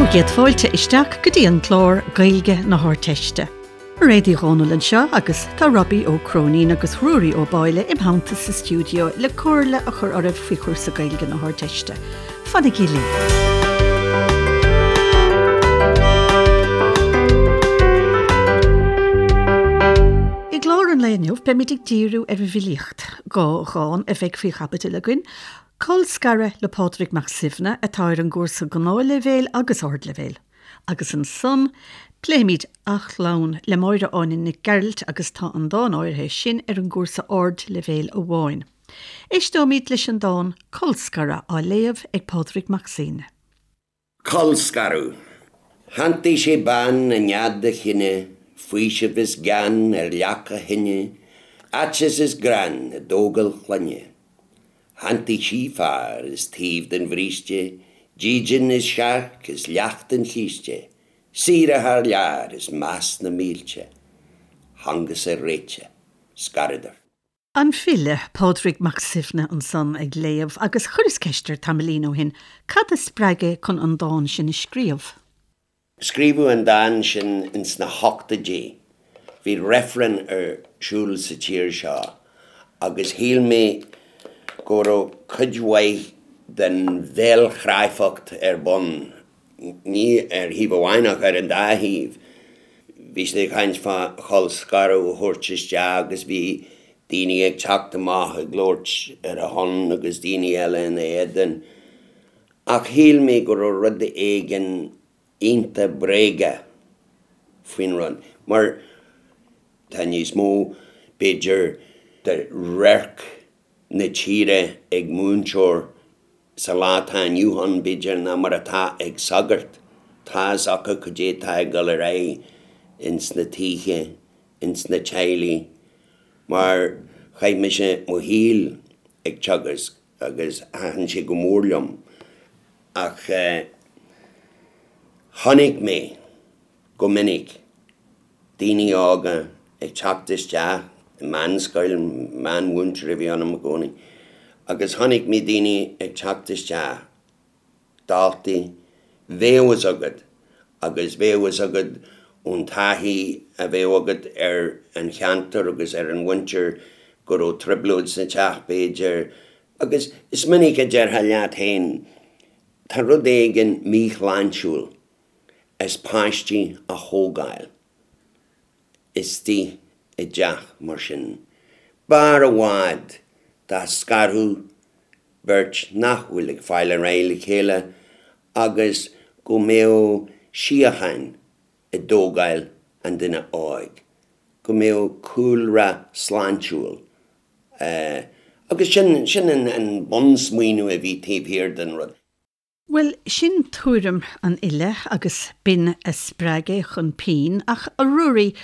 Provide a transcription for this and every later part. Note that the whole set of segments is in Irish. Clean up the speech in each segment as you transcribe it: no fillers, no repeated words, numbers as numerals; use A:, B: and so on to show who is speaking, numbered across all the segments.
A: Bhur gcéad fáilte isteach go dtí an clár Gaeilge na hArdteiste. Mairéad Uí Dhomhnaill anseo agus tá Robbie Ó Cróinín agus Ruairí Ó Báille im theannta sa stiúideo le comhairle a chur oraibh faoi chúrsa Gaeilge na hArdteiste. Fanaigí linn! I gclár an lae inniu beimid ag díriú ar an bhfilíocht. 2 dhán a bheidh faoi chaibidil againn, Colscaradh le Pádraig Mac Suibhne atá ar an gcúrsa Gnáthleibhéil agus Ardleibhéil. Agus ansan, pléimid A Chlann le Máire Áine Nic Gearailt agus tá an dán áirithe sin ar an gcúrsa Ardleibhéil amháin. Éisteoimid leis an dán Colscaradh á léamh ag Pádraig Mac Suibhne.
B: Colscaradh. Shantaigh sé bean i nead a chine, faoiseamh is gean ar leac a thine, aiteas is greann i dtógáil clainne. Shantaigh sí fear is taobh den bhríste, dídean is searc is leacht an chíste, saoire thar lear is meas na mílte. Thángasar réite. Scaradar.
A: An file, Pádraig Mac Suibhne ansan ag léamh agus chuireas ceist air tamaillín ó shin cad a spreag é chun an dán sin a scríobh.
B: Scríobhadh an dán sin ins na hochtóidí. Bhí reifreann ar siúl sa tír seo agus shíl mé go raibh cuid mhaith den bhéalchráifeacht ar bun, ní ar thaobh amháin ach ar an dá thaobh. Bhí siad ag caint fá cholscaradh a thabhairt isteach agus bhí daoine ag teacht amach ag labhairt ar a shon agus daoine eile ina éadan. Ach shíl mé go raibh rud éigin iontach bréagach faoin rud, mar tá níos mó, b'fhéidir, de radharc na tíre ag múinteoir sa lá atá inniu ann, b'fhéidir, ná mar atá ag sagart. Tá fhios acu cad é atá ag dul ar aghaidh ins na tithe, ins na teaghlaigh, mar chaith mise mo shaol ag teagasc agus thaitin sé go mór liom. Ach chonaic mé go minic daoine óga ag teacht isteach i meánscoil, meánmhúinteoir a bhí ionam i gcónaí, agus chonaic mé daoine ag teacht isteach, daltaí, bheadh fhios agat agus bheadh fhios agat ón taithí a bheadh agat ar an cheantar agus ar an mhuintir go raibh trioblóid sa teach b'fhéidir agus is minic a déarfá leat féin tá rud éigin míshláintiúil as páistí a thógáil istigh i dteach mar sin. B'fhearr i bhfad dá scarfadh beirt nach bhfuil ag fáil ar aghaidh le chéile agus go mbeadh síocháin i dtógáil an duine óig, go mbeadh cúlra sláintiúil agus sin, sin an bunsmaoineamh a bhí taobh thiar den rud.
A: Bhuel, sin tuairim an fhile agus b'in a spreag é chun pinn, ach a Ruairí,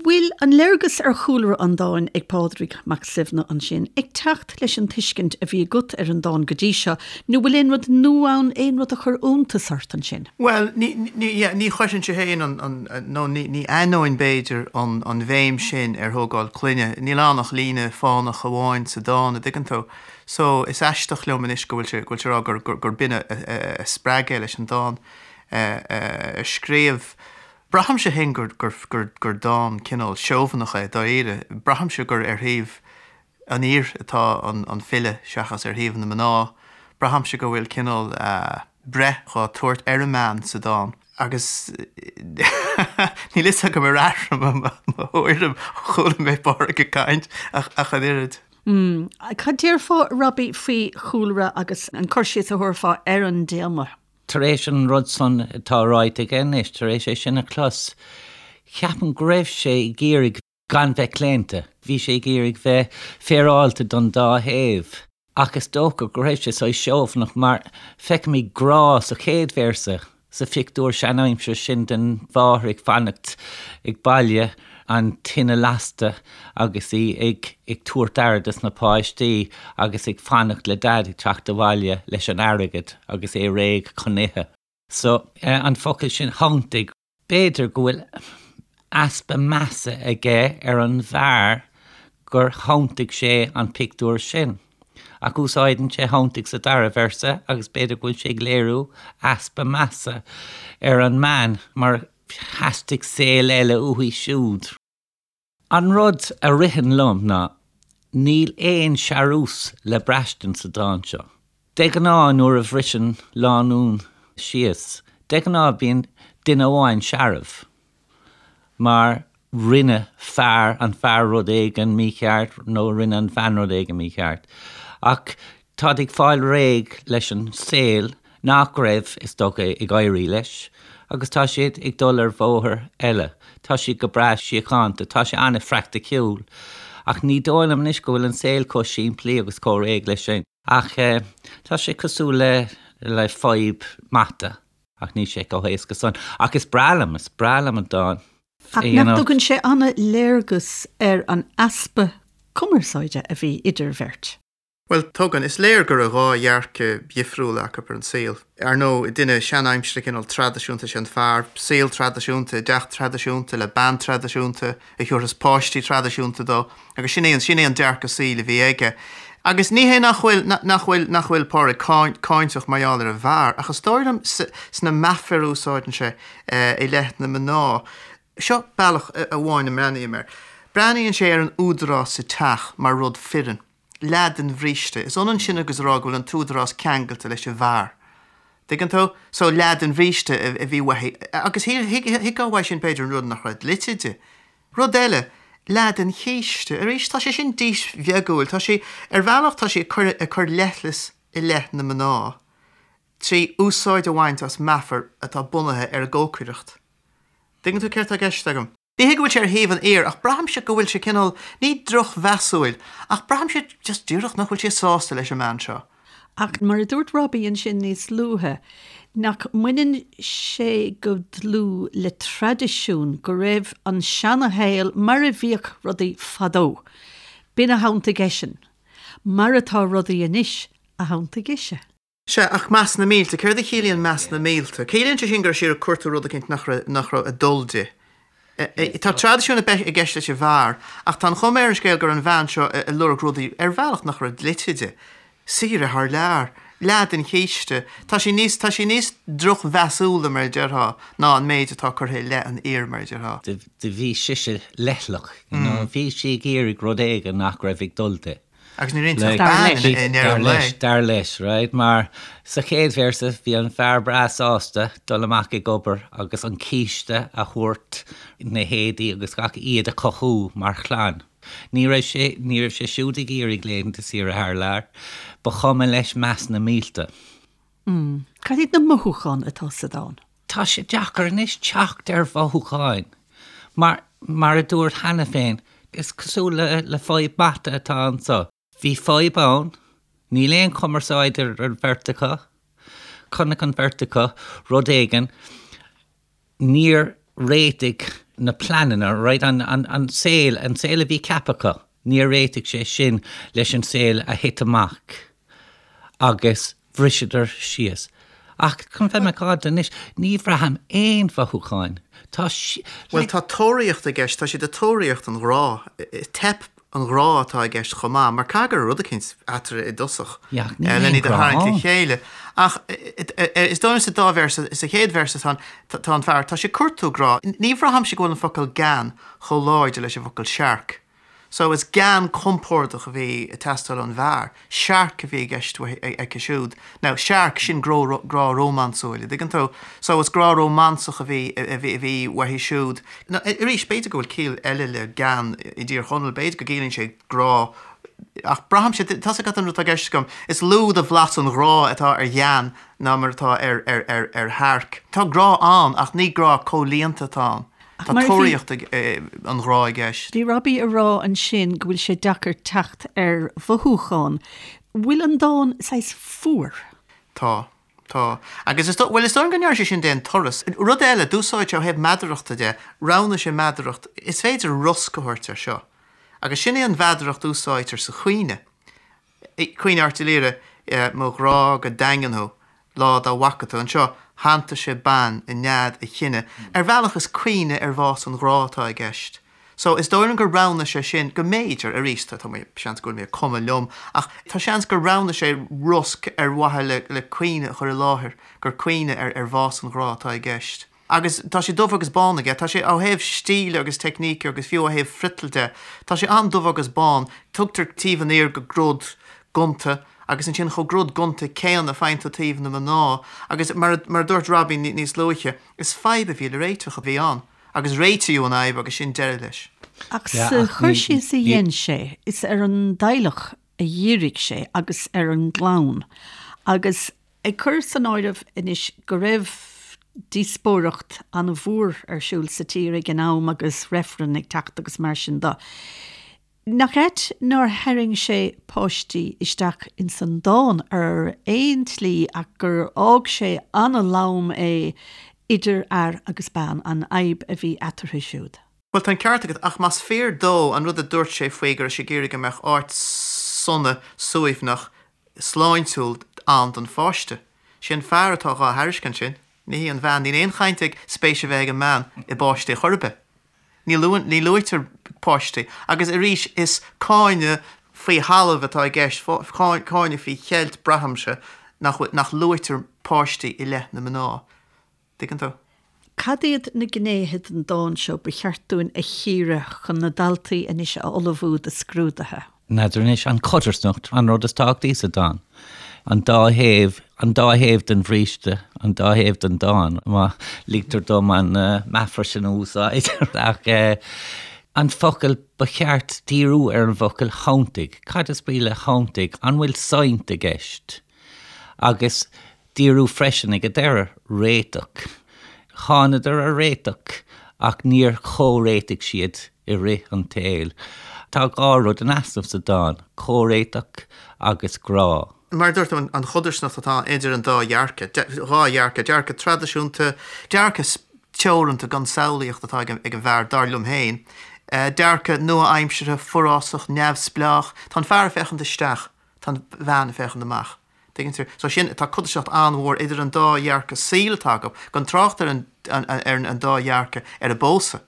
A: bhfuil an léargas ar chúlra an dáin ag Pádraig Mac Suibhne ansin ag teacht leis an tuiscint a bhí agat ar an dán go dtí seo, nó bhfuil aon rud nua ann, aon rud a chuir iontas ort ansin?
C: Bhuel, ní, ní, yeah, ní chuirfinnse féin an, an, nó ní, ní aithneoinn b'fhéidir an, an bhéim sin ar thógáil clainne. Níl ann ach líne fánach amháin sa dán, a dtuigeann tú. So, is aisteach liom anois go bhfuil sé, go bhfuil sé ag rá gur, gur, gur b'in a, a, a spreag é leis an dán a scríobh. Braithimse féin gur, gur, gur, gur dán cineál seobhanach é, dáiríre. Braithimse gur ar thaobh an fhir atá an, an file seachas ar thaobh na mná. Braithimse go bhfuil cineál breith dhá tabhairt ar an mbean sa dán. Agus níl fhios agam ar athraigh mo, mo thuairim ó chuala mé Pádraig ag caint ach, ach an oiread.
A: Mm. Cad déarfá, Robbie, faoi chúlra agus an cur síos a thabharfá ar an dtéama?
D: Tar éis an rud san atá ráite aige anois, tar éis é sin a chlos, ceapaim go raibh sé ag iarraidh gan bheith claonta. Bhí sé ag iarraidh bheith féaráilte don dá thaobh. Ach is dócha go raibh sé saghas seobhanach mar feicimid grá sa chéad véarsa. Sa phictiúr seanaimseartha sin den mháthair ag fanacht ag baile, an tine lasta agus í ag tabhairt aire dos na páistí agus ag fanacht le Daid ag teacht abhaile leis an airgead agus é réidh chun ithe. So, an focal sin 'shantaigh', b'fhéidir go bhfuil easpa measa aige ar an bhfear gur shantaigh sé an pictiúr sin. Ach úsáideann sé shantaigh sa dara véarsa agus b'fhéidir go bhfuil sé ag léiriú easpa measa ar an mbean mar theastaigh saol eile uaithi siúd. An rud a ritheann liom ná níl aon searús le braistint sa dán seo. De ghnáth nuair a bhriseann lánúin síos, de ghnáth bíonn duine amháin searbh. mar rinne fear, an fear rud éigin mícheart nó rinne an bhean rud éigin mícheart. Ach táid ag fáil réidh leis an saol nach raibh, is dócha, ag éirí leis agus tá siad ag dul ar bhóthar eile. Tá siad go breá síochánta, tá sé an-phraiticiúil. Ach ní dóigh liom anois go bhfuil an saol chomh simplí agus chomh réidh leis sin. Ach tá sé cosúil le le fadhb mata. Ach níl sé chomh héasca san. Ach is breá liom, is breá liom an dán.
A: Ach nach dtugann sé an-léargas ar an easpa cumarsáide a bhí idir bheirt?
C: Bhuel, tugann. Is léir go raibh dhá dhearcadh dhifriúla acu ar an saol. Ar ndóigh, duine seanaimseartha cineál traidisiúnta is ea an fear, saol traidisiúnta, i dteach traidisiúnta, le bean traidisiúnta a thiúrfas páistí traidisiúnta dó. Agus sin é an, sin é an dearcadh saoil a bhí aige. Agus ní hé nach bhfuil, nach bhfuil, nach bhfuil Pádraig cáinteach mar gheall ar an bhfear, ach is dóigh liom sna meafair a úsáideann sé i leith na mná, seo bealach amháin a mbreathnaím air. Breathnaíonn sé ar an údarás sa teach mar rud fireann. Leath den bhríste. Is ionann sin agus a rá go bhfuil an t-údarás ceangailte leis an bhfear. Tuigeann tú? So leath den bhríste a bhí uaithi. Agus thuigfeá uaidh sin b'fhéidir an rud nach raibh dlite di. Rud eile, leath den chíste. Arís, tá sé sin dísbheagúil. Tá sé, ar bhealach, tá sé ag cur, ag cur leithleas i leith na mná trí úsáid a bhaint as meafar atá bunaithe ar an gcócaireacht. Tuigeann tú céard tá i gceist agam? Ní hé go bhfuil sé ar thaobh an fhir, ach braithimse go bhfuil sé cineál, ní drochmheasúil, ach braithimse just díreach nach bhfuil sé sásta leis an mbean seo.
A: Ach mar a dúirt Robbie ansin níos luaithe, nach mbaineann sé go dlúth le traidisiún, go raibh an seanashaol mar a bhíodh rudaí fadó. B'in a shantaigh eisean. Mar atá rudaí anois a shantaigh ise.
C: Sea, ach meas na mílte, céard a chiallaíonn meas na mílte? Ciallaíonn sé sin go raibh sí ag cuartú rud eicínt nach raibh, nach raibh ag dul di. Tá traidisiún i gceist leis an bhfear, ach tá an chuma ar an scéal go raibh an bhean seo ag lorg rudaí ar bhealach nach raibh dlite di. Saoire thar lear. Leath den chíste. Tá sí níos, tá sí níos drochmheasúla, mar a déarfá, ná an méid atá curtha i leith an fhir, mar a déarfá.
D: Do bhí sise leithleach, you know, bhí sí ag iarraidh rud éigin nach raibh ag dul di.
C: Agus ní raibh inti ach bean i ndeireadh an lae.
D: Dar leis, right, mar sa chéad véarsa bhí an fear breá sásta dul amach ag obair agus an císte a thabhairt, na héadaí agus gach, iad a chothú mar chlann. Ní raibh sé, ní raibh sé siúd ag iarraidh laethanta saoire thar lear. Ba chuma leis meas na mílte.
A: Mm. Cad iad na mothúcháin atá sa dán?
D: Tá sé deacair anois teacht ar mhothúcháin. Mar, mar a dúirt cheana féin, is cosúil le, le fadhb mata atá anso. Bhí fadhb ann, níl aon chumarsáid idir an bheirt acu, chonaic an bheirt acu rud éigin, níor réitigh na pleananna, right, an, an, an saol, an saol a bhí ceaptha acu, níor réitigh sé sin leis an saol a thit amach agus bhriseadar síos. Ach chun bheith macánta anois, ní bhraithim aon mhothúcháin. Tá
C: sí, Bhuel, tá tóraíocht i gceist, tá siad ag tóraíocht an ghrá. Teip an ghrá atá i gceist chomh maith, mar caithfidh go raibh rud eicínt eatarthu i dtosach len iad a tharraingt le chéile. Ach is dóigh liom sa dá véarsa, sa chéad véarsa tá tá an fear, tá sé ag cuartú grá. Ní bhraithimse go bhfuil an focal gean chomh láidir leis an bhfocal searc. So is gean compordach a bhí ag teastáil ón bhfear, searc a bhí i gceist aici siúd. Now, searc, sin grá rómánsúil, an dtuigeann tú? So is grá rómánsach a bhí a bhí uaithi siúd. Now, arís, b'fhéidir go bhfuil ciall eile le gean i dTír Chonaill, b'fhéidir go gciallaíonn sé grá, ach braithimse, tá's agat an rud atá i gceist agam, is lú de bhlas an ghrá atá ar ghean ná mar atá ar ar ar ar shearc. Tá grá ann ach ní grá comhlíonta atá ann. Tá tóraíocht an ghrá i gceist.
A: Bhí Robbie ag rá ansin go bhfuil sé deacair teacht ar mhothúcháin. Bhfuil an dán saghas fuar?
C: Tá. Tá. Agus is dóigh, bhuel, is dóigh liom go ndearna sé sin d'aon turas. Rud eile, d'úsáid sé ó thaobh meadarachta de, roghnaigh sé meadaracht, is féidir rosc a thabhairt air seo. Agus sin é an mheadaracht a úsáidtear sa chaoineadh. Caoineadh Airt Uí Laoghaire, Mo ghrá go daingean thú, lá dá bhfaca tú. Anseo, shantaigh sé bean i nead a chine. Ar bhealach is caoineadh ar bhás an ghrá atá i gceist. So, is dóigh liom gur roghnaigh sé sin, go mb'fhéidir, arís, tá mé, seans go bhfuil mé ag cumadh liom, ach tá seans gur roghnaigh sé rosc ar mhaithe le, le caoineadh a chur i láthair, gur caoineadh ar, ar bhás an ghrá atá i gceist. Agus tá sé dubh agus bán aige, tá sé ó thaobh stíle agus teicníce agus fiú ó thaobh friotail de, tá sé an-dubh agus bán, tugtar taobh an fhir go grod gonta agus ansin chomh grod gonta céanna faigheann tú taobh na mná agus mar a, mar a dúirt Robbie níos luaithe, is fadhb a bhí le réiteach a bhí ann agus réitíodh an fhadhb agus sin deireadh leis.
A: Ach sa chur síos a dhein sé, is ar an dteaghlach a dhírigh sé agus ar an gclann agus Ag cur san áireamh anois go raibh díospóireacht an-mhór ar siúl sa tír ag an am agus reifreann ag teacht agus mar sin de, nach ait nár tharraing sé páistí isteach ins an dán ar aon tslí ach gur fhág sé an-lom é idir fhear agus bean, an fhadhb a bhí eatarthu siúd.
C: Bhuel, tá an ceart agat, ach más fíor dó an rud a dúirt sé faoi go raibh sé ag iarraidh go mbeadh áit sona, suaimhneach, sláintiúil ann don pháiste. Sé an fear atá dhá thairiscint sin, ní hí an bhean. Níl aon chaint ag spéis a bheith ag an mbean i bpáistí chor ar bith. Ní luann, ní luaitear páistí. Agus arís, is cáineadh faoi thalamh atá i gceist, cáineadh faoi cheilt, braithimse, nach bhfuil, nach luaitear páistí i leith na mná. Tuigeann tú?
A: Cad iad na gnéithe den dán seo ba cheart dúinn a chíoradh chun na daltaí anois a ullmhú do scrúduithe?
D: N'fheadar anois, an chodarsnacht an rud is tábhachtaí sa dán. An dá thaobh, an dá thaobh den bhríste, an dá thaobh den dán, má ligtear dom an meafar sin a úsáid. Ach an focal, ba cheart díriú ar an bhfocal 'shantaigh'. Cad is brí le 'shantaigh'? An bhfuil saint i gceist? Agus díriú freisin ag an deireadh, réiteach. Thánadar ar réiteach ach níor chomhréitigh siad i rith an tsaoil. Tá 2 rud in easnamh sa dán, comhréiteach agus grá.
C: Mar a dúirt tú, an chodarsnacht atá idir an dá dhearcadh, 2 dhearcadh, dearcadh traidisiúnta, dearcadh teoranta gan samhlaíocht atá ag an bhfear, dar liom féin, dearcadh nua-aimseartha, forásach, neamhspleách. Tá an fear ag féachaint isteach, tá an bhean ag féachaint amach. Tuigeann tú? So sin, tá codarsnacht an-mhór idir an dá dhearcadh saoil atá acu, gan trácht ar an, ar an dá dhearcadh ar an bpósadh.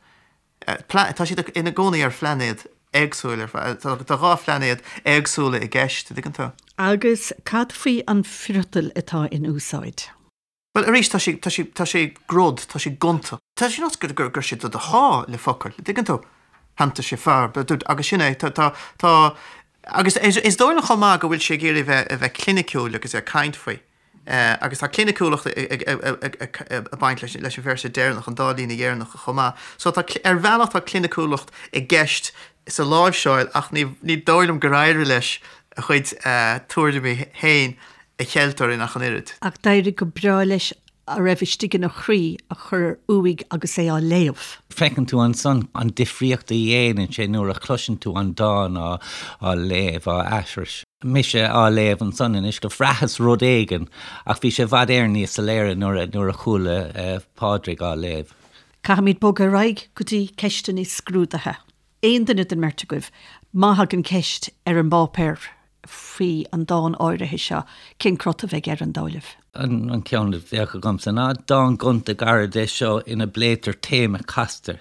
C: Tá siad ina gcónaí ar phlainéad éagsúil ar fad, tá 2 phlainéad éagsúla i gceist, tuigeann tú?
A: Agus cad faoi an friotal atá in úsáid?
C: Bhuel, arís, tá sé, tá sé, tá sé grod, tá sé gonta. Tá sé nós gur, gur, gur sé do do shá le focail, an dtuigeann tú? Shantaigh sé fear, agus sin é, tá, tá, tá, agus is, is dóigh liom chomh maith go bhfuil sé ag iarraidh bheith, a bheith cliniciúil agus é ag caint faoi. Agus tá cliniciúlacht ag, ag, ag, ag, ag, ag baint leis, leis an véarsa deireanach, an dá líne dheireanacha chomh maith. So tá, ar bhealach tá cliniciúlacht i gceist sa láimhseáil ach ní, ní dóigh liom gur éirigh leis a chuid tuairimí féin a cheilt orainn ach an oiread.
A: Ach d'éirigh go breá leis a raibh istigh ina chroí a chur uaidh agus é á léamh.
D: Feiceann tú ansan an difríocht a dhéanann sé nuair a chloiseann tú an dán á léamh, á aithris. Mise á léamh ansan anois, do bhraitheas rud éigin ach bhí sé i bhfad Éireann níos soiléire nuair a chuala Pádraig á léamh.
A: Caithfimid bogadh ar aghaidh go dtí ceisteanna scrúdaithe. Aon duine den mbeirt agaibh, má thagann ceist ar an bpáipéar faoi an dán áirithe seo, cén crot a bheidh air, an dóigh libh?
D: An ceann a bheadh agamsa ná, dán gonta gairid é seo ina bpléitear téama casta,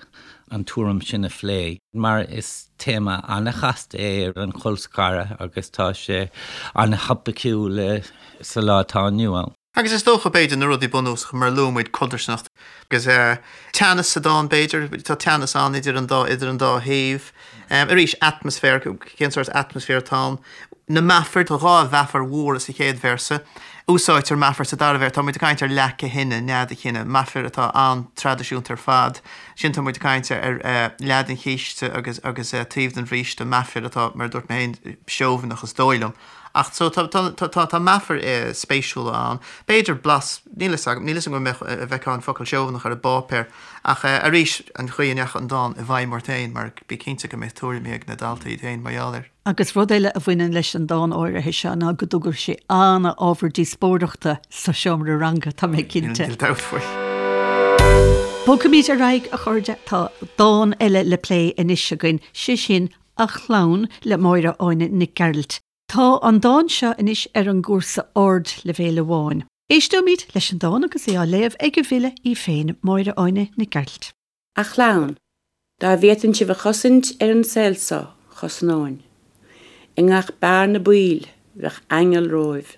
D: an tuairim sin a phlé, mar is téama an-chasta é an colscaradh agus tá sé an-thopaiciúil sa lá atá inniu ann.
C: Agus is dócha, b'fhéidir, na rudaí bunúsacha, mar a luaigh muid, codarsnacht agus teannas sa dán, b'fhéidir, tá teannas ann idir an dá, idir an dá thaobh. Arís, atmaisféar, cén sórt atmaisféar atá ann? Na meafair, tá 2 mheafar mhóra sa chéad véarsa. Úsáidtear meafar sa dara véarsa, tá muid ag caint ar leac a thine, nead a chine, meafair atá an-traidisiúnta ar fad. Ansin tá muid ag caint ar leath den chíste agus, agus taobh den bhríste, meafair atá, mar a dúirt mé féin, seobhaineach is dóigh liom. Ach so tá tá tá tá meafair spéisiúla ann. B'fhéidir blas, níl fhios agam, níl fhios agam an mbeadh, a bhfeicfeá an focal seobhaineach ar an bpáipéar. Ach arís, an chaoi a ndeachaigh an dán i bhfeidhm ort féin, mar bí cinnte go mbeidh tuairimí ag na daltaí iad féin mar gheall air.
A: Agus rud eile a bhaineann leis an dán áirithe seo ná go dtugadh sé an-ábhar díospóireachta sa seomra ranga, tá mé cinnte.
C: Níl dabht faoi.
A: Bogfaimid ar aghaidh, a chairde, tá dán eile le plé anois againn, sé sin A Chlann le Máire Áine Nic Gearailt. Tá an dán seo anois ar an gcúrsa ardleibhéil amháin. Éisteoimid leis an dán agus é á léamh ag an bhfile í féin, Máire Áine Nic Gearailt.
E: A Chlann. Dá bhféadfainn sibh a chosaint ar an saol so, chosnóinn. I ngach bearna baoil, bheadh aingeal romhaibh.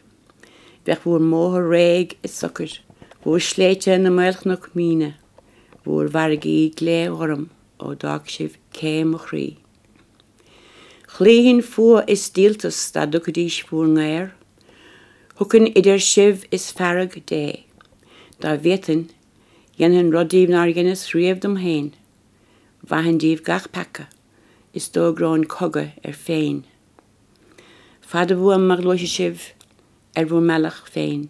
E: Bheadh bhúr mbóthar réidh is socair, bhúr sléibhte ina maolchnoic míne, bhúr bhfarraigí glé-ghorm ó d'fhág sibh cé mo chroí. Chloífinn fuath is díoltas dá dtugfaidís bhúr ngaor. Thiocfainn idir sibh is fearg Dé. Dá bhféadfainn, Dhéanfainn rud díbh nár dheineas riamh dom féin, mhaithfinn díbh gach peaca, is d'fhógróinn cogadh ar Féin. Fada uaim má ghluaisfidh sibh ar bhur mbealach féin,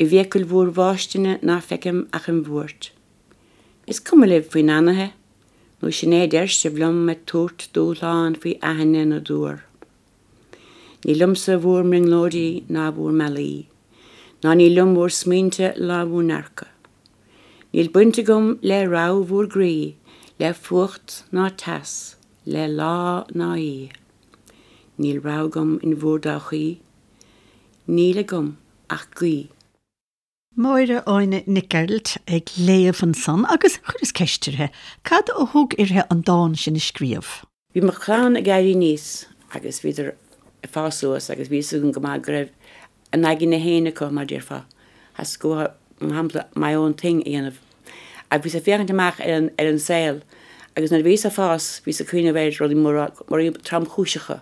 E: i bhfiacail bhúr bhfáistine ná feicim ach im bhuairt. Is cuma libh faoi n-anaithe, nó sin é a deir sibh liom ag tabhairt dúshlán faoi aithinne na dtuar. Ní liomsa bhúr mbrionglóidí ná bhúr mbealaí, ná ní liom bhúr smaointe ná bhúr ndearcadh. Níl baint agam le rogha bhúr gcroí, le fuacht ná teas, le lá ná oíche. Níl rogha agam in bhúr dtodhchaí, níl agam ach guí.
A: Máire Áine Nic Gearailt ag léamh ansan agus chuireas ceist uirthi, cad a thug uirthi an dán sin a scríobh?
E: Bhí mo chlann ag éirí aníos agus bhíodar ag fás suas agus bhí fhios agam go maith go raibh a n-aigne féin acu, mar déarfá. Theastaigh uathu, mar shampla, my own thing a dhéanamh. Ach bhíos ag féachaint amach ar an, ar an saol agus nuair a bhíos ag fás, bhíos ag cuimhneamh ar rudaí móra, rudaí tromchúiseacha,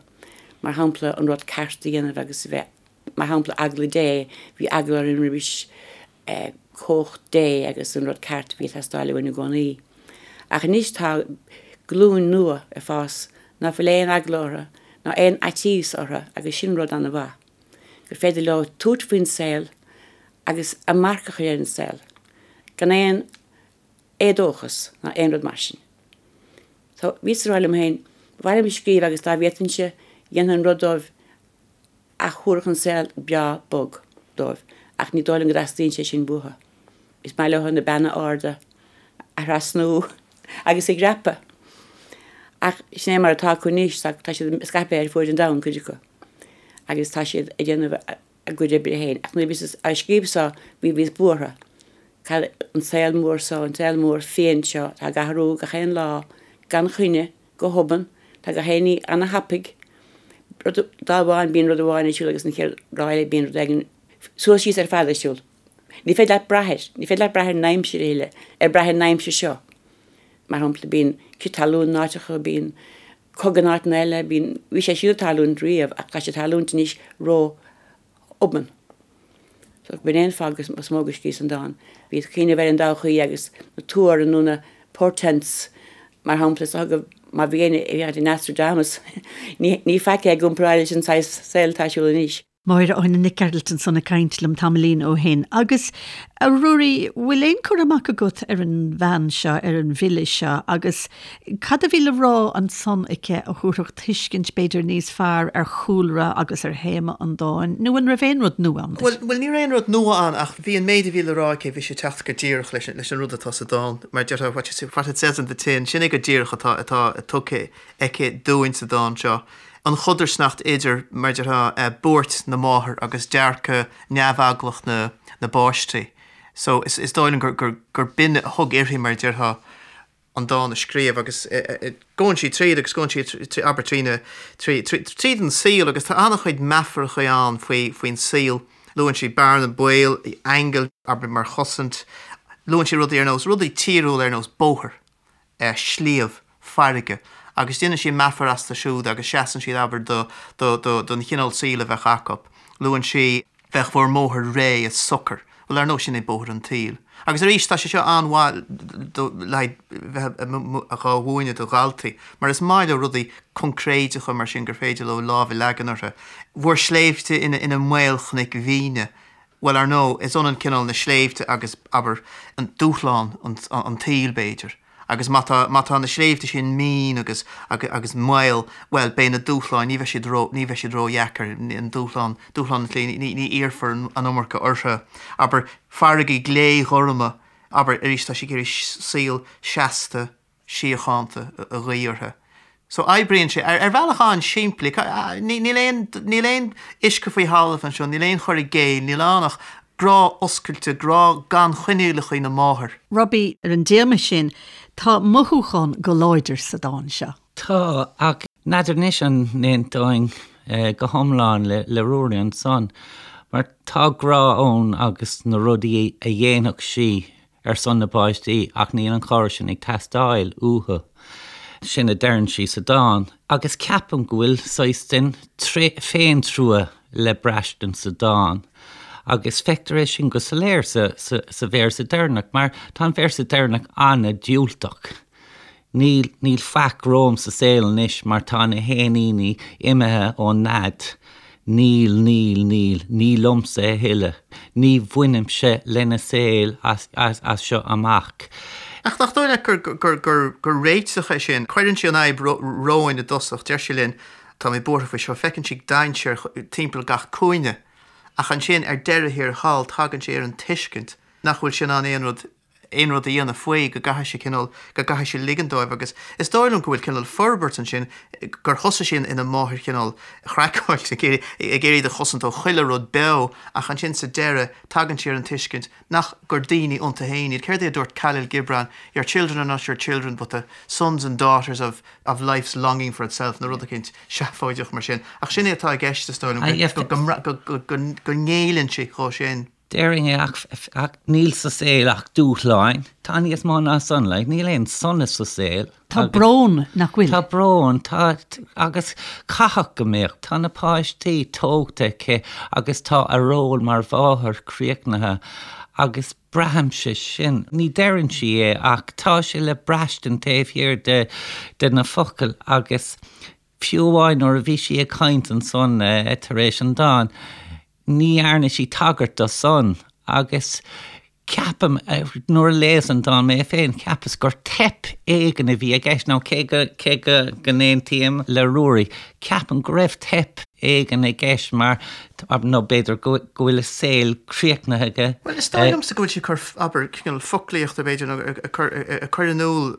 E: mar shampla an rud ceart a dhéanamh agus a bheith Mar shampla, eagla Dé, bhí eagla orainn roimis chumhacht Dé agus an rud ceart a bhí ag teastáil uainn i gcónaí. Ach anois tá glúin nua ag fás ná fuil aon eagla orthu ná aon fhaitíos orthu agus sin rud an-mhaith, gur féidir leo tabhairt faoin saol agus a marc a chur ar an saol gan aon éadóchas ná aon rud mar sin. So bhíos ag rá liom féin, ba mhaith liom scríobh agus dá bhféadfainnse dhéanfainn rud dóibh a thabharfadh an saol breá bog dóibh ach ní dóigh liom go dteastaíonn sé sin uathu. Is maith leo na beanna arda a thrasnú agus a dhreapadh. Ach sin é mar atá acu anois, tá siad scaipthe ar fuaid an domhain, cuid acu, agus tá siad ag déanamh a gcuid oibre féin. Ach nuair a bhíos á scríobh so, bhí bhíos buartha. Cad, an saol mór so, an saol mór fiáin seo, atá ag athrú gach aon lá gan choinne, Go hobann, tá gach aon ní ana-thapaidh. Rud, lá amháin bíonn rud amháin ar siúl agus an chéad lá eile bíonn rud éigin suas síos ar fad ar siúl. Ní féidir leat brath air, ní féidir leat brath ar an aimsir a thuilleadh, ar brath ar an aimsir seo. Mar shampla, bíonn crith talún in áiteacha, bíonn cogadh in áiteanna eile, bíonn, bhí sé sin ag tarlúint riamh ach tá sé ag tarlúint anois ró obann. So b'in é an fáth is mó go scríos an dán. Bhíos ag cuimhneamh ar an dtodhchaí agus na tuar nó na portents mar shampla is dócha má bhí éinne ag féachaint ar Nostradamus ní faic é i gcomparáid leis an saghas saoil atá ar siúl anois.
A: Máire Áine Nic Gearailt ansan ag caint liom tamaillín ó shin. Agus, a Ruairí, bhfuil aon cur amach agat ar an bhean seo, ar an bhfile seo, agus Cad a bhí le rá ansan aici a thabharfadh tuiscint b'fhéidir níos fearr ar chúlra agus ar théama an dáin, nó an raibh aon rud nua ann
C: duit? Bhuel, bhuel, ní raibh aon rud nua ann ach bhí an méid a bhí le rá aici, bhí sé ag teacht go díreach leis an, leis an rud atá sa dán. Mar a déarfá, what you, what it says on the tin, sin é go díreach atá, atá tugtha aici dúinn sa dán seo. An chodarsnacht idir, mar a déarfá, buairt na máthar agus dearcadh neamheaglach na, na bpáistí. So, is, is dóigh liom gur, gur, gur b'in a thug uirthi, mar a déarfá, an dán a scríobh agus gabhann sí tríd agus gabhann sí abair trí na tríd an saol agus tá an-chuid meafaracha ann faoi faoin saol. Luann sí bearna baoil, aingil, abair mar chosaint. Luann sí rudaí ar nós rudaí tíriúla ar nós bóthar, sliabh, farraige agus déanann sí meafar astu siúd agus seasann siad abair do do do don chineál saoil a bheadh acu. Luann sí. Bheadh bhur mbóthar réidh is socair. Bhuel, ar ndóigh, sin é bóthar an tsaoil. Agus arís, tá sé seo an-mhaith le haghaidh bheith dhá mhúineadh do dhaltaí, mar is maith leo rudaí coincréideacha mar sin gur féidir leo lámh a leagan orthu. Bhur sléibhte ina maolchnoic mhíne. Bhuel, ar ndóigh, is ionann cineál na sléibhte agus, abair, an dúshlán an tsaoil, b'fhéidir. Agus má tá, má tá na sléibhte sin mín agus, agus maol, bhuel, beidh na dúshláin, ní bheidh siad ró, ní bheidh siad ródheacair, an dúshlán, dúshlán an tslí, ní, ní iarrfar an iomarca orthu. Abair, farraigí gléghorma, abair, arís tá sí ag iarraidh saol seasta, síochánta a ghuí orthu. So oibríonn sé ar, ar bhealach an-simplí. Níl aon, níl aon uisce faoi thalamh anseo, níl aon chur i gcéill, níl ann ach. Grá oscailte, grá gan choinníollacha na máthar.
A: Robbie, ar an dtéama sin, tá mothúchán go láidir sa dán seo.
D: Tá, ach n'fheadar anois an n-aontóinn go hiomlán le Ruairí ansan, mar tá grá ann agus na rudaí a dhéanfadh sí ar son na bpáistí ach níl an chabhair sin ag teastáil uathu. Sin a deireann sí sa dán. Agus ceapaim go bhfuil saghas den féintrua le braistint sa dán. Agus feictear é sin go soiléir sa véarsa deireanach, mar tá an véarsa deireanach an-diúltach. Níl, níl faic romham sa saol anois mar tá na héiníní imithe ón nead. Níl, níl, níl, ní liomsa a thuilleadh. Ní bhainimse lena saol as, as, as seo amach.
C: Ach nach dóigh leat gur, gur, gur, gur réiteach é sin? Cuireann sí an fhadhb romhainn i dtosach, deir sí linn, tá mé buartha faoi seo, feiceann sí dainséar timpeall gach cúinne. Ach ansin, ar deireadh thiar thall, tagann sí ar an tuiscint nach bhfuil sí in ann aon rud aon rud a dhéanamh faoi, go gcaithfidh sí cineál, go gcaithfidh sí ligean dóibh agus is dóigh liom go bhfuil cineál forbairt ansin, gur thosaigh sí ina máthair chineál chraiceáilte, ag iarraidh, ag iarraidh iad a chosaint ó chuile rud beo ach ansin sa deireadh tagann sí ar an tuiscint nach, gur daoine iontu féin iad. Céard é a dúirt Kahlil Gibran, your children are not your children but the sons and daughters of, of life's longing for itself nó rud eicínt seafóideach mar sin. Ach sin é atá i gceist is dóigh liom, go, go, go, go, go ngéilleann sí dhó sin.
D: Déarfainn é ach níl sa saol ach dúshláin. Tá níos mó ná san, like, níl aon sonas sa saol.
A: Tá brón, nach bhfuil?
D: Tá brón, tá, agus caithfidh go mbeadh. Tá na páistí tógtha aici agus tá a ról mar mháthair críochnaithe agus braithimse sin. Ní deireann sí é ach tá sé le braistint taobh thiar de, de na focail agus fiú amháin nuair a bhí sí ag caint ansan tar éis an dáin, Ní dhearna sí tagairt do san agus ceapaim, nuair a léas an dán mé féin, cheapas gur teip éigin a bhí i gceist, nó cé go, cé go, go n-aontaím le Ruairí, ceapaim go raibh teip éigin i gceist mar, nó b'fhéidir go, go bhfuil a saol críochnaithe aige.
C: Bhuel, is dóigh liomsa go bhfuil sí ag cur, abair, cineál foclaíochta, b'fhéidir, nó ag cur, ag cur in iúl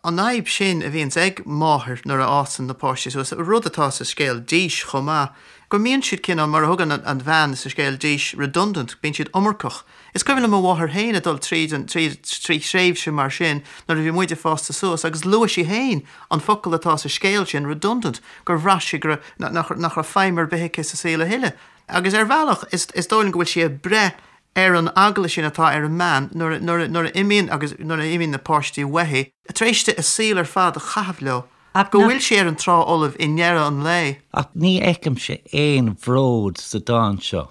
C: an fhadhb sin a bhíonns ag máthair nuair a fhásann na páistí suas, rud atá sa scéal Dís chomh maith. go mbíonn siad cineál, mar a thugann an bhean sa scéal Dís, redundant, bíonn siad iomarcach. Is cuimhin liom mo mháthair féin ag dul tríd an, tríd, trí thréimhse mar sin nuair a bhí muid ag fás suas agus luaigh sí féin an focal atá sa scéal sin, redundant, gur bhraith sí go raibh, nach, nach raibh feidhm ar bith aici sa saol a thuilleadh. Agus ar bhealach, is, is dóigh liom go bhfuil sí ag breith ar an eagla sin atá ar an mbean nuair a, nuair a, nuair a imíonn agus nuair a imíonn na páistí uaithi, tar éis di a saol ar fad a chaitheamh leo.
D: Ach
C: go bhfuil sí ar an trá fholamh i ndeireadh an lae.
D: Ach ní fheicimse aon bhród sa dán seo,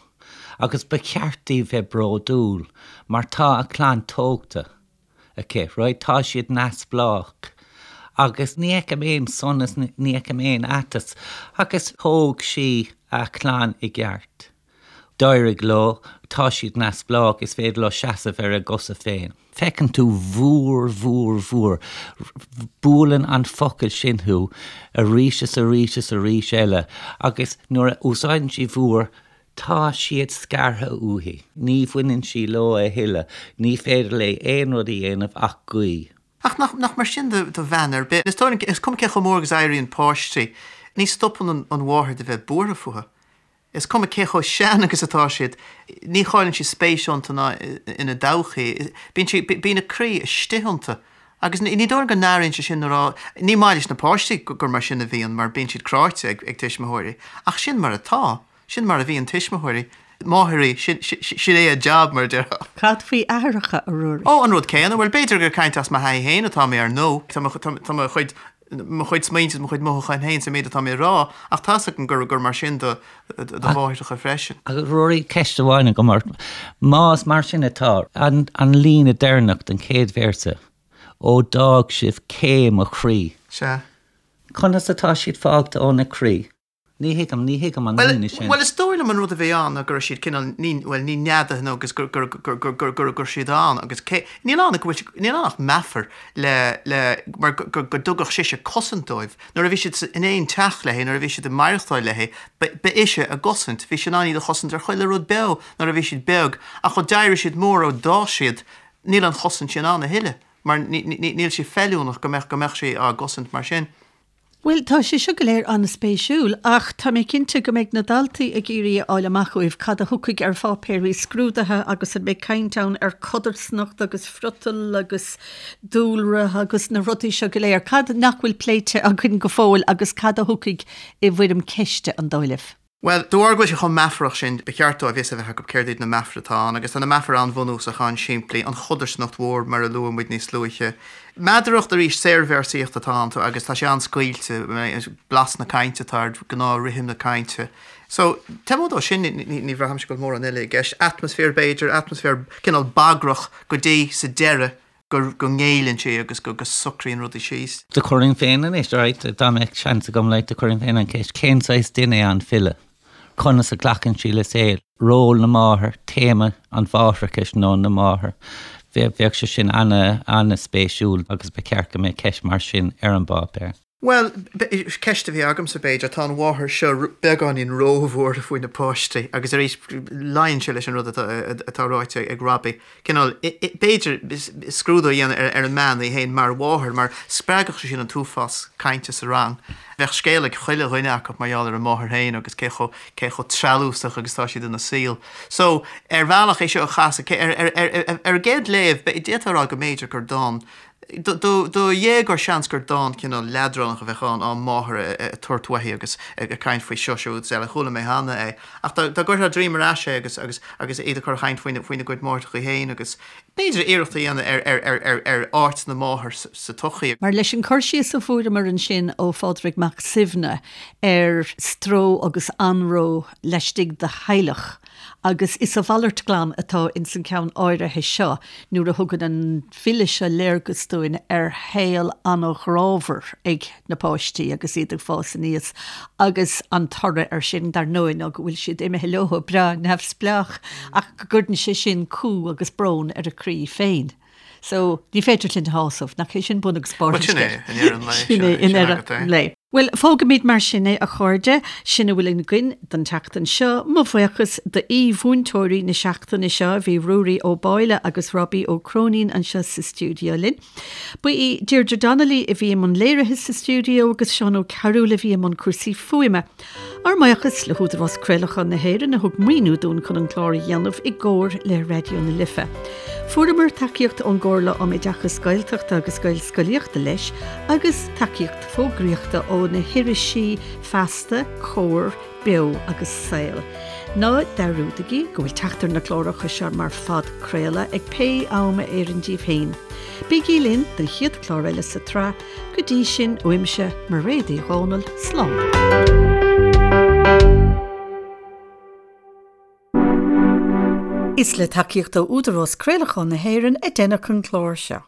D: agus ba cheart di bheith bródúil, mar tá a clann tógtha aici, right, tá siad neamhspleách. Agus ní fheicim aon sonas, ní fheicim aon aiteas, agus thóg sí a clann i gceart. D'éirigh leo, tá siad neamhspleách, is féidir leo seasamh ar a gcosa féin. Feiceann tú bhúr, bhúr, bhúr. Buaileann an focal sin thú arís is arís is arís eile agus nuair a úsáideann sí bhúr, tá siad scartha uaithi. Ní bhaineann sí leo a thuilleadh. Ní féidir léi aon rud a dhéanamh ach guí.
C: Ach nach, nach mar sin do, do bhean ar bith. Is dóigh liom, is cuma cé chomh mór agus a éiríonn páistí, ní stopann an, an mháthair de bheith buartha fúthu. Is cuma cé chomh sean agus atá siad, ní chailleann sí spéis iontu ná ina dtodhchaí. Bíonn sí, bíonn a croí istigh iontu. Agus ní dóigh liom go n-airíonn sé sin nuair a, ní maith leis na páistí gur mar sin a bhíonn, mar bíonn siad cráite ag tuismitheoirí. Ach sin mar atá. Sin mar a bhíonn tuismitheoirí. Máithrí, sin, sin é a jab, mar a déarfá.
A: Cad faoi aithreacha, a Ruairí?
C: Ó, an rud céanna. Bhuel, b'fhéidir gur ag caint as mo thaithí féin atá mé, ar ndóigh. Tá mo, tá mo chuid mo chuid smaointe is mo chuid mothúchán féin sa méid atá mé a rá, ach tá's agam gur gur mar sin do do mháithreacha freisin.
D: Ach Ruairí, ceist amháin agam ort. Más mar sin atá, an an líne deireanach den chéad véarsa, Ó d'fhág sibh cé mo chroí.
C: Sea.
D: Conas atá siad fágtha óna croí? Ní thuigim, ní thuigim an líne sin.
C: Bhuel, is dóigh liom an rud a bhí ann ná go raibh siad cineál, ní, bhuel, ní neadaithe nó agus gur, gur, gur, gur, gur, gur, gur siad ann agus cé, níl ann ach go bhfuil, níl ann ach meafar le, le, mar go, go, go dtugadh sise cosaint dóibh. Nuair a bhí siad sa, in aon teach léi, nuair a bhí siad ag maireachtáil léi, ba, ba ise a gcosaint. Bhí sí in ann iad a chosaint ar chuile rud beo nuair a bhí siad beag ach ó d'éirigh siad mór, ó d'fhás siad, níl an chosaint sin ann a thuilleadh mar ní, ní, níl sí feiliúnach go mbeadh, go mbeadh sí á gcosaint mar sin.
A: Bhuel, tá sé seo go léir an-spéisiúil, ach tá mé cinnte go mbeidh na daltaí ag iarraidh a fháil amach uaibh cad a thiocfaidh ar pháipéirí scrúdaithe agus an mbeidh caint ann ar codarsnacht agus friotal agus dúlra agus na rudaí seo go léir. Cad nach bhfuil pléite againn go fóill agus cad a thiocfaidh i bhfoirm ceiste, an dóigh libh?
C: Bhuel, de bharr go bhfuil sé chomh meafarach sin, ba cheart dóibh fhios a bheith acu céard iad na meafair atá ann, agus tá na meafair an-bhunúsach, an-simplí, an chodarsnacht mhór mar a luaigh muid níos luaithe. Meadaracht, arís, saorvéarsaíocht atá ann agus tá sé an-scaoilte, blas na cainte atá air, gnáth-rithim na cainte. So, taobh amuigh dó sin, ní bhraithimse go bhfuil mórán eile i gceist. Atmaisféar, b'fhéidir, atmaisféar cineál bagrach go dtí sa deireadh go go ngéilleann sé agus go go socraíonn rudaí síos.
D: Do chuirfinn féin anois, alright, dá mbeadh seans agam, like, do chuirfinn féin an cheist, cén saghas duine é an file? Conas a ghlacann sí le saol? Ról na máthar, téama an mháithreachais nó na máthar, bheadh sé sin ana, ana-spéisiúil agus ba cheart go mbeadh ceist mar sin ar an bpáipéar.
C: Bhuel, ceist a bhí agamsa, b'fhéidir, tá an mháthair seo beagáinín róbhuartha faoi na páistí agus arís luíonn sé leis an rud atá ráite ag Robbie. Cineál, b'fhéidir, scrúdú a dhéanamh ar an mbean í féin mar mháthair mar spreagfadh sé sin an t-uafás cainte sa rang. Bheadh scéal ag chuile dhuine acu mar gheall ar a máthair féin agus cé chomh, cé chomh treallúsach agus atá siad ina saol. So, ar bhealach é seo a chasadh, ar an gcéad léamh, d'fhéadfá a rá go mb'fhéidir gur dán Do dhéagóir seans gur dán cineál leadránach a bheadh ann, á máthair ag tabhairt uaithi agus ag caint faoi seo, siúd is eile. Chuala mé cheana é. Ach dá gcuirfeá droim ar ais é agus agus agus iad a chur a chaint faoina faoina gcuid máithreacha féin agus b'fhéidir iarracht a dhéanamh ar ar ar ar ar áit na máthar sa tsochaí.
A: Mar leis an cur síos a fuaireamar ansin ó Phádraig Mac Suibhne ar stró agus anró laistigh de theaghlach, Agus is a mhalairt glan atá ins an ceann áirithe seo nuair a thugann an file seo léargas dúinn ar shaol an-ghrámhar ag na páistí agus iad ag fás aníos agus an toradh air sin, dar ndóigh, ná go bhfuil siad imithe leo breá neamhspleách ach go gcuireann sé sin cumha agus brón ar a croí féin. So, ní féidir linn a shásamh, nach é sin bun agus barr an
C: scéil? Sin é, i ndeireadh an lae.
A: Sin é, i ndeireadh an lae. Bhuel, fágfaimid mar sin é, a chairde. Sin a bhfuil againn don tseachtain seo. Mo bhuíochas d'aoi-mhúinteoirí na seachtaine seo, bhí Ruairí Ó Báille agus Robbie Ó Cróinín anseo sa stiúideo linn. Ba í Deirdre Donnelly a bhí i mbun léirithe sa stiúideo agus Seán Ó Cearúil a bhí i mbun cúrsaí fuaime. Ár mbuíochas le hÚdarás Craolacháin na hÉireann a thug maoiniú dúinn chun an clár a dhéanamh i gcomhar le Raidió na Life. Fuaireamar tacaíocht ón gComhairle um Oideachas Gaeltachta agus Gaelscolaíochta leis agus tacaíocht fógraíochta ó na hirisí Feasta, Comhar, Beo agus Saol. Ná dearúdaigí go bhfuil teacht ar na cláracha seo mar phodchraoladh ag pé am a oireann díbh féin. Bígí linn don chéad chlár eile sa tsraith, go dtí sin uaimse Mairéad Uí Dhomhnaill, slán. Is le tacaíocht ó Údarás Craolacháin na hÉireann a deineadh an clár seo.